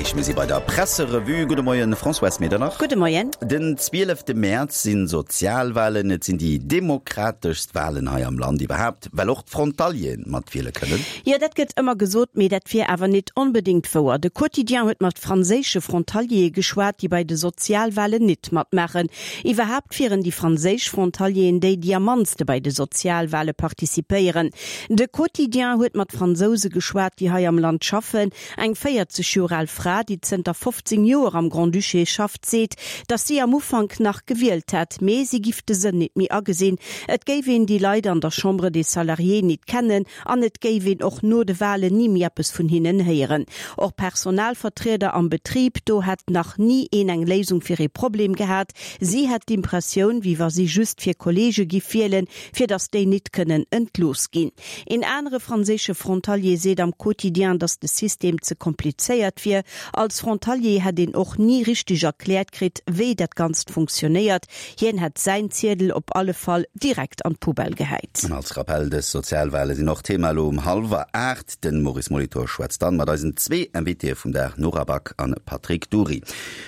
Erreecht. Mir si bei der Presserevue. Gudde Moien, Françoise Medernach. Gudde Moien. Den 12 Mäerz si Sozialwalen. Et sinn déi demokrateschst Walen hei am Land iwwerhaapt, well och d'Frontalieren matwiele kënnen. Jo, dat gëtt ëmmer gesot, mee dat wier awer nit onbedéngt wouer. De Quotidien huet mat franséische Frontaliere geschwat, déi bei de Sozialwalen nit matmaachen. Iwwerhaapt wieren déi franséisch Frontalieren déi, déi am mannste bei de Sozialwale participéieren. De Quotidien huet mat Fransouse geschwat, déi hei am Land schaffen. Eng 40 Joer al Fra, déi zënter 15 Joer am Grand-Duché schafft, seet, datt si am Ufank nach gewielt hätt, mee si giff de Sënn nit méi agesinn. Et géif een déi Leit an der Chambre des Salariés nit kennen an et géif een och no de Walen ni méi eppes vun hinnen héieren. Och Personalvertrieder am Betrib, do hätt nach ni een eng Léisung fir ee Problem gehat. Si hätt d'Impressioun, wéi wa si just fir Kolleege giff wielen, fir datt déi nit kënnen entlooss ginn. Een anere franséische Frontalier seet am Quotidien, datt de System ze komplizéiert wier. Als Frontalier hätt een och ni richteg erkläert kritt, wéi dat Ganzt funktionéiert. Hien hätt säin Ziedel op alle Fall direkt an d'Poubelle gehäit. An als Rappell, dës Sozialwale sinn och Thema elo um hallwer 8. Den Maurice Molitor schwätzt dann mat eisen zwee Invitéë vum Dag, Nora Back an Patrick Dury.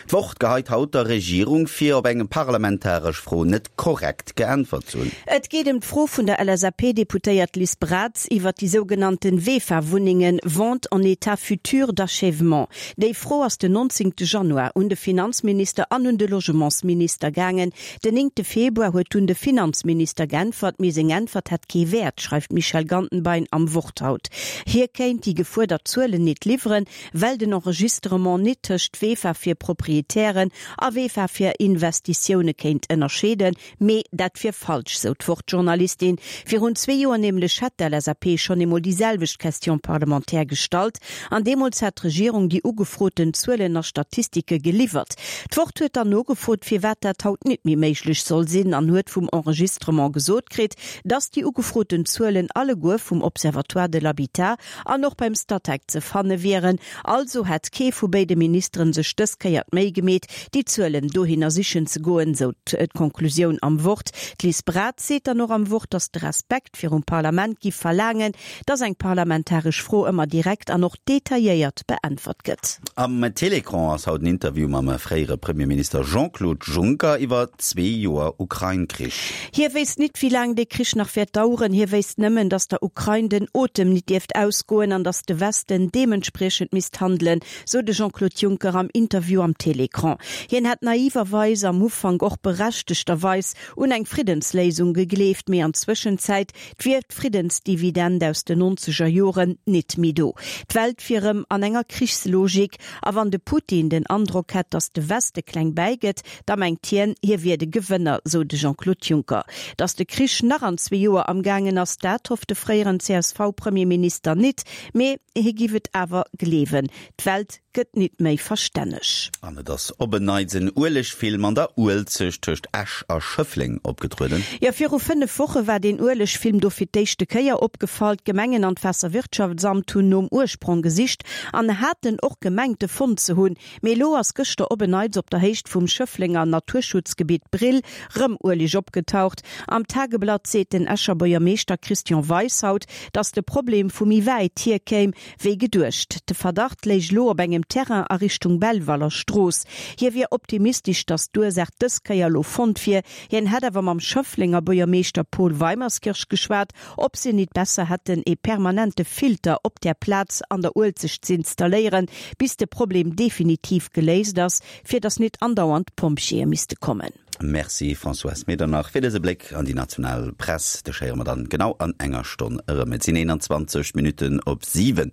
D'Wort geheit haut der Regierung vir, op eng parlamentaresch Fro net korrekt geäntwert ze hunn. Et geet ëm d'Fro vun der LSAP-Deputéiert Liz Braz iwwert déi sougenannten VEFA-Wunnengen, Vente en état futur d'achèvement. Déi Fro ass den 19 Januar un de Finanzminister an un de Logementsminister gaangen. Den 9 Februar huet dunn de Finanzminister geäntwert, mee seng Äntwert hätt kee Wäert, schreift d'Michèle Gantenbein am Wort haut. Hie kéint déi gefuerdert Zuelen nit liwweren, well den Enregistrement nit tëscht VEFA fir Proprietären a VEFA fir Investitioune kéint ënnerscheeden. Mee dat wier falsch, sou d'Wort-Journalistin. Virun zwee Joer nämlech hätt d'LSAP schonn eemol déi selwecht Question parlementaire gestallt an deemools hätt d'Regierung déi ugefroten Zuelen a Statistike geliwwert. D'Wort huet dann nogefrot, firwat dat haut nit méi méiglech soll sinn an huet vum Enregistrement gesot kritt, dass déi ugefroten Zuelen alleguer vum Observatoire de l'habitat an och beim Statec ze fanne wieren. Also hätt kee vu béide Ministeren sech dës Kéier d'Méi gemeet, déi Zuelen dohinner sichen ze goen, sou d'Konklusioun am Wort. D'Liz Braz seet dann och am Wort, datt de Respekt virum Parlament giff verlaangen, datt eng parlamentaresch Fro ëmmer direkt an och detailléiert beäntwert gëtt. Am Télécran ass haut en Interview mam fréiere Premierminister Jean-Claude Juncker iwwer zwee Joer Ukrain-Krich. Hie wéisst nit, wéi laang dee Krich nach wäert daueren. Hie wéisst nëmmen, datt der Ukrain den Otem nit dierft ausgoen an datt de Westen deementspriechend misst handelen, sou de Jean-Claude Juncker am Interview am Télécran. Hien hätt naiverweis, am Ufank och berechtegterweis, un eng Friddensléisung gegleeft, mee an Zwëschenzäit wier d'Friddensdividend aus den nonzeger Joren nit méi do. D'Welt wier rëm an enger Krichslogik a wann de Putin den Androck hätt, datt de Weste kleng bäigëtt, Da mengt hien, hie wier de Gewënner, sou de Jean-Claude Juncker. Datt de Krich nach an zwee Joer amgaangen ass, dat hofft de fréieren CSV-Premierminister nit, mee hie giff et awer gleewen. D'Welt gëtt nit méi verstänneg. An et ass op en Neits en Uelegfilm an der Uelzecht tëscht Esch a Schëffleng opgetrueden. Jo, viru 5 Woche war deen Uelegfilm do fir d'éischte Kéier opgefall. D'Gemengen an d'Waasserwirtschaftsamt hunn nom Ursprong gesicht an haten och gemengt, e fonnt ze hunn. Mee elo ass gëschter op en Neits op der Héicht vum Schëfflenger Naturschutzgebitt Brill rëm Ueleg opgetaucht. Am Tageblatt seet den Escher Buergermeeschter Christian Weis haut, datt de Problem vu méi wäit hier kéim, wéi geduecht. De Verdacht léich elo op engem Terrain a Richtung Belvaler Strooss. Hie wier optimistesch, datt d'Ursaach dës Kéier elo fonnt wier. Hien hätt awer mam Schëfflenger Buergermeeschter Paul Weimerskirch geschwat Ob se nit besser hätten ee permanente Filter op där Plaz an der Uelzecht z'installéieren, bis de Problem definitiv geléist ass, fir datt nit andauernd d'Pompjeeë misste kommen. Merci Françoise Medernach fir dëse Bléck an déi national Press. Dech héiere mer dann genau an enger Stonn erëm. Et sinn 21 Minutten op 7.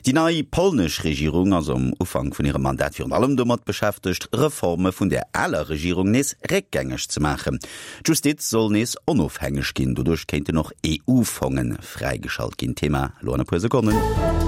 Déi nei polnesch Regierung ass um Ufank vun hirem Mandat virun allem domat beschäftegt, Reforme vun der aler Regierung nees réckgängeg ze maachen. D'Justiz soll nees onofhängeg ginn, doduerch kéinten och EU-Fonge fräigeschalt ginn. Thema elo an e puer Sekonnen.